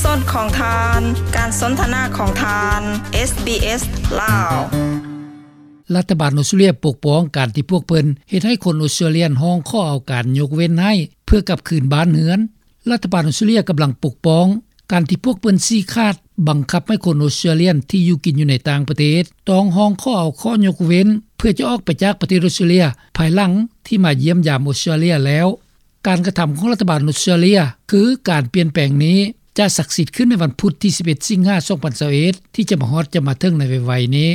ສອດຂອງທ່ານ ການສົນທະນາຂອງທ່ານ ເອສບີເອສ ລາວ. ລັດຖະບານອົດສະຕຣາເລຍປົກປ້ອງການທີ່ພວກເພິ່ນເຮັດໃຫ້ຄົນອົດສະຕຣາເລຍຮ້ອງຂໍເອົາການຍົກເວັ້ນໃຫ້ເພື່ອກັບຄືນບ້ານເຮືອນ. ລັດຖະບານອົດສະຕຣາເລຍກຳລັງປົກປ້ອງການທີ່ພວກເພິ່ນຊີ້ຂາດບັງຄັບໃຫ້ຄົນອົດສະຕຣາເລຍທີ່ຢູ່ກິນຢູ່ໃນຕ່າງປະເທດຕ້ອງຮ້ອງຂໍເອົາຂໍ້ຍົກເວັ້ນເພື່ອຈະອອກໄປຈາກປະເທດອົດສະຕຣາເລຍ ພາຍຫຼັງທີ່ມາຢ້ຽມຢາມອົດສະຕຣາເລຍແລ້ວ. ການກະທຳຂອງລັດຖະບານອົດສະຕຣາເລຍ ຄືການປ່ຽນແປງນີ້ ຈະສັກສິດຂຶ້ນໃນວັນພຸດທີສິບເອັດ ສິງຫາ ສອງພັນຊາວເອັດ ທີ່ຈະມາຮອດຈະມາເຖິງໃນໄວໆນີ້.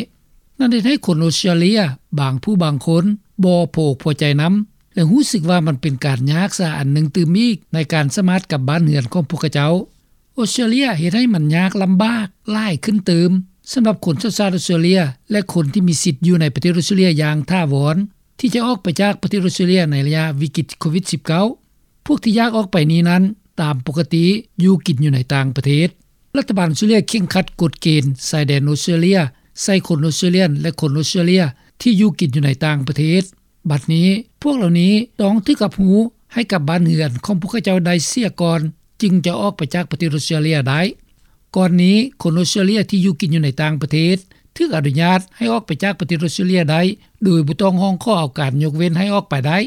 ນັ້ນເຮັດໃຫ້ຄົນອົດສະຕຣາເລຍບາງຜູ້ບາງຄົນບໍ່ພໍອົກພໍໃຈນຳ ແລະ ຮູ້ສຶກວ່າມັນເປັນການຍາກຊາອັນໜຶ່ງຕື່ມອີກໃນການສາມາດກັບບ້ານເຮືອນຂອງພວກເຂົາເຈົ້າ. ອົດສະຕຣາເລຍເຮັດໃຫ້ມັນຍາກລຳບາກຫຼາຍຂຶ້ນຕື່ມ ສຳລັບຄົນສັນຊາດອົດສະຕຣາເລຍ ແລະ ຄົນທີ່ມີສິດຢູ່ໃນປະເທດອົດສະຕຣາເລຍຢ່າງຖາວອນ ທີ່ຈະອອກໄປຈາກປະເທດອົດສະຕຣາເລຍໃນໄລຍະວິກິດໂຄວິດສິບເກົ້າ. ພວກທີ່ຢາກອອກໄປນີ້ນັ້ນ ຕາມປົກກະຕິຢູ່ກິນຢູ່ໃນຕ່າງປະເທດ. ລັດຖະບານອົດສະຕຣາເລຍເຄັ່ງຄັດກົດເກນຊາຍແດນອົດສະຕຣາເລຍໃສ່ຄົນອົດສະຕຣາເລຍ ແລະ ຄົນອົດສະຕຣາເລຍທີ່ຢູ່ກິນຢູ່ໃນຕ່າງປະເທດ. ບັດນີ້ພວກເຫຼົ່ານີ້ຕ້ອງຖືກຮັບຮູ້ໃຫ້ກັບບ້ານເຮືອນຂອງພວກເຂົາເຈົ້າໄດ້ເສຍກ່ອນ ຈຶ່ງຈະອອກໄປຈາກປະເທດອົດສະຕຣາເລຍໄດ້. ກ່ອນນີ້ຄົນອົດສະຕຣາເລຍທີ່ຢູ່ກິນຢູ່ໃນຕ່າງປະເທດ ຖືກອະນຸຍາດໃຫ້ອອກໄປຈາກປະເທດອົດສະຕຣາເລຍໄດ້ ໂດຍບໍ່ຕ້ອງຮ້ອງຂໍເອົາການຍົກເວັ້ນໃຫ້ອອກໄປໄດ້.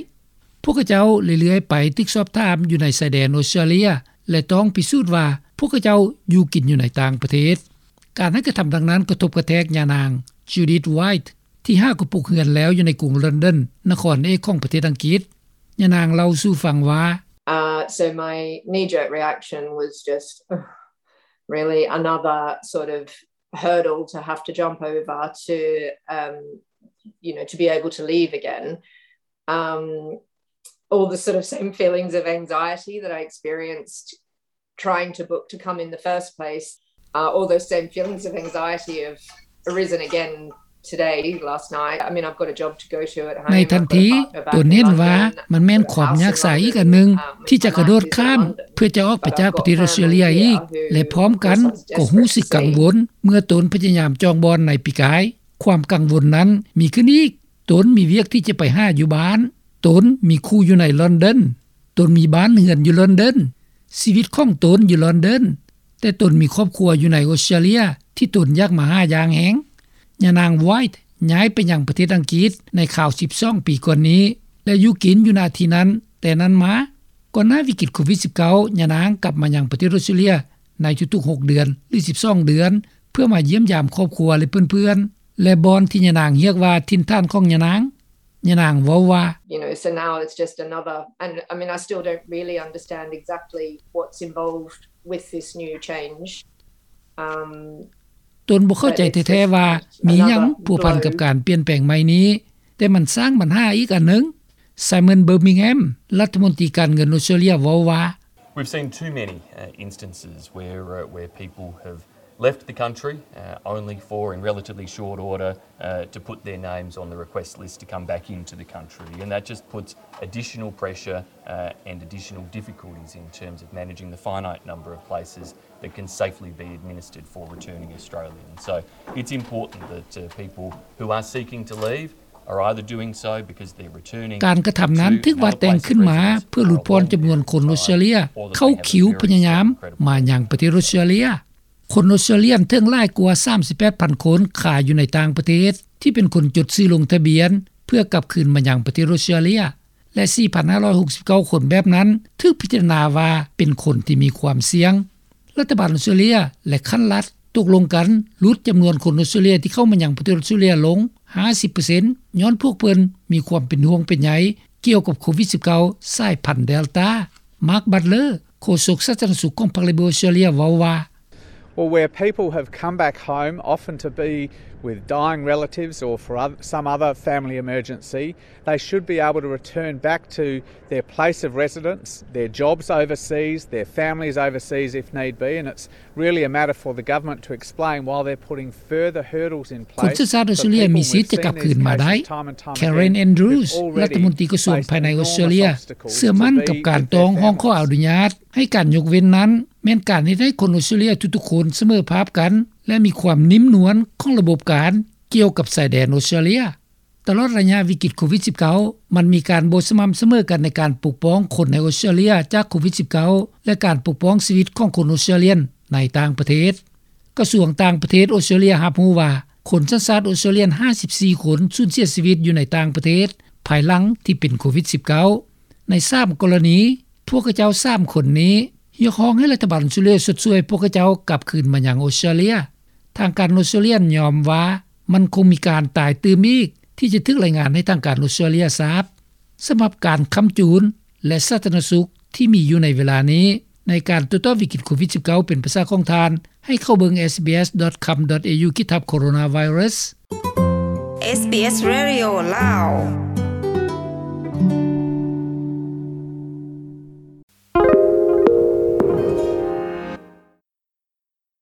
ພວກເຂົາເຈົ້າເລື້ອຍໆໄປຖືກສອບຖາມຢູ່ໃນຊາຍແດນອົດສະຕຣາເລຍ ແລະ ຕ້ອງພິສູດວ່າພວກເຂົາເຈົ້າຢູ່ກິນຢູ່ໃນຕ່າງປະເທດ. ການໃຫ້ກະທຳດັ່ງນັ້ນກະທົບກະແທກຍານາງ Judith White ທີ່ຫາກໍປຸກເຮືອນແລ້ວຢູ່ໃນກຸງລອນດອນ ນະຄອນເອກຂອງປະເທດອັງກິດ. ຍານາງເລົ່າສູ່ຟັງວ່າ Uh, so my knee-jerk reaction was just, really another sort of hurdle to have to jump over to, um, you know, to be able to leave again. Um, all the sort of same feelings of anxiety that I experienced trying to book to come in the first place, uh, all those same feelings of anxiety have arisen again today, last night. I mean, I've got a job to go to at home. ໃນທັນທີຕົນເຫັນວ່າມັນແມ່ນຄວາມຍາກຊາອີກອັນໜຶ່ງທີ່ຈະກະໂດດຂ້າມເພື່ອຈະອອກໄປຈາກປະເທດອົດສະຕຣາເລຍອີກ ແລະ ພ້ອມກັນກໍຮູ້ສຶກກັງວົນເມື່ອຕົນພະຍາຍາມຈອງບ່ອນໃນປີກາຍ. ຄວາມກັງວົນນັ້ນມີຂຶ້ນອີກ. ຕົນມີວຽກທີ່ຈະໄປຫາຢູ່ບ້ານ. ຕົນມີຄູ່ຢູ່ໃນລອນດອນ. ຕົນມີບ້ານເຮືອນຢູ່ລອນດອນ. ຊີວິດຂອງຕົນຢູ່ລອນດອນ, ແຕ່ຕົນມີຄອບຄົວຢູ່ໃນອົດສະຕຣາເລຍທີ່ຕົນຢາກມາຫາຢ່າງແຮງ. ຍານາງ White ຍ້າຍໄປຍັງປະເທດອັງກິດໃນຄາວສິບສອງປີກ່ອນນີ້ ແລະ ຢູ່ກິນຢູ່ນະທີ່ນັ້ນແຕ່ນັ້ນມາ. ກ່ອນໜ້າວິກິດໂຄວິດສິບເກົ້າ ຍານາງກັບມາຍັງປະເທດອົດສະຕຣາເລຍໃນທຸກໆຫົກເດືອນ ຫຼື ສິບສອງເດືອນ ເພື່ອມາຢ້ຽມຢາມຄອບຄົວ ແລະ ເພື່ອນໆ ແລະ ບ່ອນທີ່ຍານາງຮຽກວ່າຖິ່ນຖານຂອງຍານາງ. ຍານາງເວົ້າວ່າ You know, so now it's just another, and I mean, I still don't really understand exactly what's involved with this new change. Um, ຕົນບໍ່ເຂົ້າໃຈແທ້ໆວ່າມີຫຍັງພົວພັນກັບການປ່ຽນແປງໃໝ່ນີ້, ແຕ່ມັນສ້າງບັນຫາອີກອັນໜຶ່ງ. Simon Birmingham ລັດຖະມົນຕີການເງິນອົດສະຕຣາເລຍເວົ້າວ່າ We've seen too many, uh, instances where, uh, where people have left the country, uh, only for, in relatively short order, uh, to put their names on the request list to come back into the country. And that just puts additional pressure, uh, and additional difficulties in terms of managing the finite number of places that can safely be administered for returning Australians. So it's important that, uh, people who are seeking to leave are either doing so because they're returning to another place of safety or they want to return back to their country. ການກະທຳນັ້ນຖືກວາດແຕ່ງຂຶ້ນມາເພື່ອຫຼຸດຜ່ອນຈຳນວນຄົນອົດສະຕຣາເລຍເຂົ້າຄິວພະຍາຍາມມາຍັງປະເທດອົດສະຕຣາເລຍ. ຄົນອົດສະຕຣາເລຍເຖິງຫຼາຍກວ່າສາມສິບແປດພັນຄົນຄາຢູ່ໃນຕ່າງປະເທດ ທີ່ເປັນຄົນຈົດຊື່ລົງທະບຽນເພື່ອກັບຄືນມາຍັງປະເທດອົດສະຕຣາເລຍ ແລະ ສີ່ພັນຫ້າຮ້ອຍຫົກສິບເກົ້າຄົນແບບນັ້ນຖືກພິຈາລະນາວ່າເປັນຄົນທີ່ມີຄວາມສ່ຽງ. ລັດຖະບານອົດສະຕຣາເລຍ ແລະ ຂັ້ນລັດຕົກລົງກັນຫຼຸດຈຳນວນຄົນອົດສະຕຣາເລຍທີ່ເຂົ້າມາຍັງປະເທດອົດສະຕຣາເລຍລົງຫ້າສິບເປີເຊັນ ຍ້ອນພວກເພິ່ນມີຄວາມເປັນຫ່ວງເປັນໃຍກ່ຽວກັບໂຄວິດສິບເກົ້າ ສາຍພັນເດລຕາ. Mark Butler ໂຄສົກສາທາລະນະສຸກຂອງພັກ Labor ອົດສະຕຣາເລຍເວົ້າວ່າ Well, where people have come back home, often to be with dying relatives or for oth-, some other family emergency, they should be able to return back to their place of residence, their jobs overseas, their families overseas if need be, and it's really a matter for the government to explain why they're putting further hurdles in place for people. ຄົນສັນຊາດອົດສະຕຣາເລຍມີສິດຈະກັບຄືນມາໄດ້. Karen Andrews ລັດຖະມົນຕີກະຊວງພາຍໃນອົດສະຕຣາເລຍ ເຊື່ອໝັ້ນກັບການຕ້ອງຮ້ອງຂໍອະນຸຍາດ ໃຫ້ການຍົກເວັ້ນນັ້ນ ແມ່ນການເຮັດໃຫ້ຄົນອົດສະຕຣາເລຍທຸກໆຄົນສະເໝີພາບກັນ ແລະ ມີຄວາມນິ້ມນວນຂອງລະບົບການກ່ຽວກັບຊາຍແດນອົດສະຕຣາເລຍ. ຕະຫຼອດໄລຍະວິກິດໂຄວິດສິບເກົ້າ ມັນມີການບໍ່ສະໝ່ຳສະເໝີກັນໃນການປົກປ້ອງຄົນໃນອົດສະຕຣາເລຍຈາກໂຄວິດສິບເກົ້າ ແລະ ການປົກປ້ອງຊີວິດຂອງຄົນອົດສະຕຣາເລຍ ໃນຕ່າງປະເທດ. ກະຊວງຕ່າງປະເທດອອສເຕຣເລັຽຮັບຮູ້ວ່າ ຄົນສັນຊາດອອສເຕຣເລັຽຫ້າສິບສີ່ຄົນ ສູນເສຍຊີວິດຢູ່ໃນຕ່າງປະເທດ ພາຍຫຼັງທີ່ເປັນໂຄວິດ-19 ໃນສາມກໍລະນີ. ພວກຂະເຈົ້າສາມຄົນນີ້ຮຽກຮ້ອງໃຫ້ລັດຖະບານອອສເຕຣເລັຽຊົດຊ່ວຍພວກຂະເຈົ້າກັບຄືນມາຍັງອອສເຕຣເລັຽ. ທາງການອອສເຕຣເລັຽຍອມຮັບວ່າ ມັນຄົງມີການຕາຍຕື່ມອີກ ທີ່ຈະຖືກລາຍງານໃຫ້ທາງການອອສເຕຣເລັຽຊາບ. ສຳລັບການຄ້ຳຈູນ ແລະ ສາທາລະນະສຸກທີ່ມີຢູ່ໃນເວລານີ້ ໃນການໂຕ້ຕອບວິກິດໂຄວິດ-19 ເປັນພາສາຂອງທ່ານ ໃຫ້ເຂົ້າເບິ່ງ SBS.com.au/coronavirus. SBS Radio ລາວ.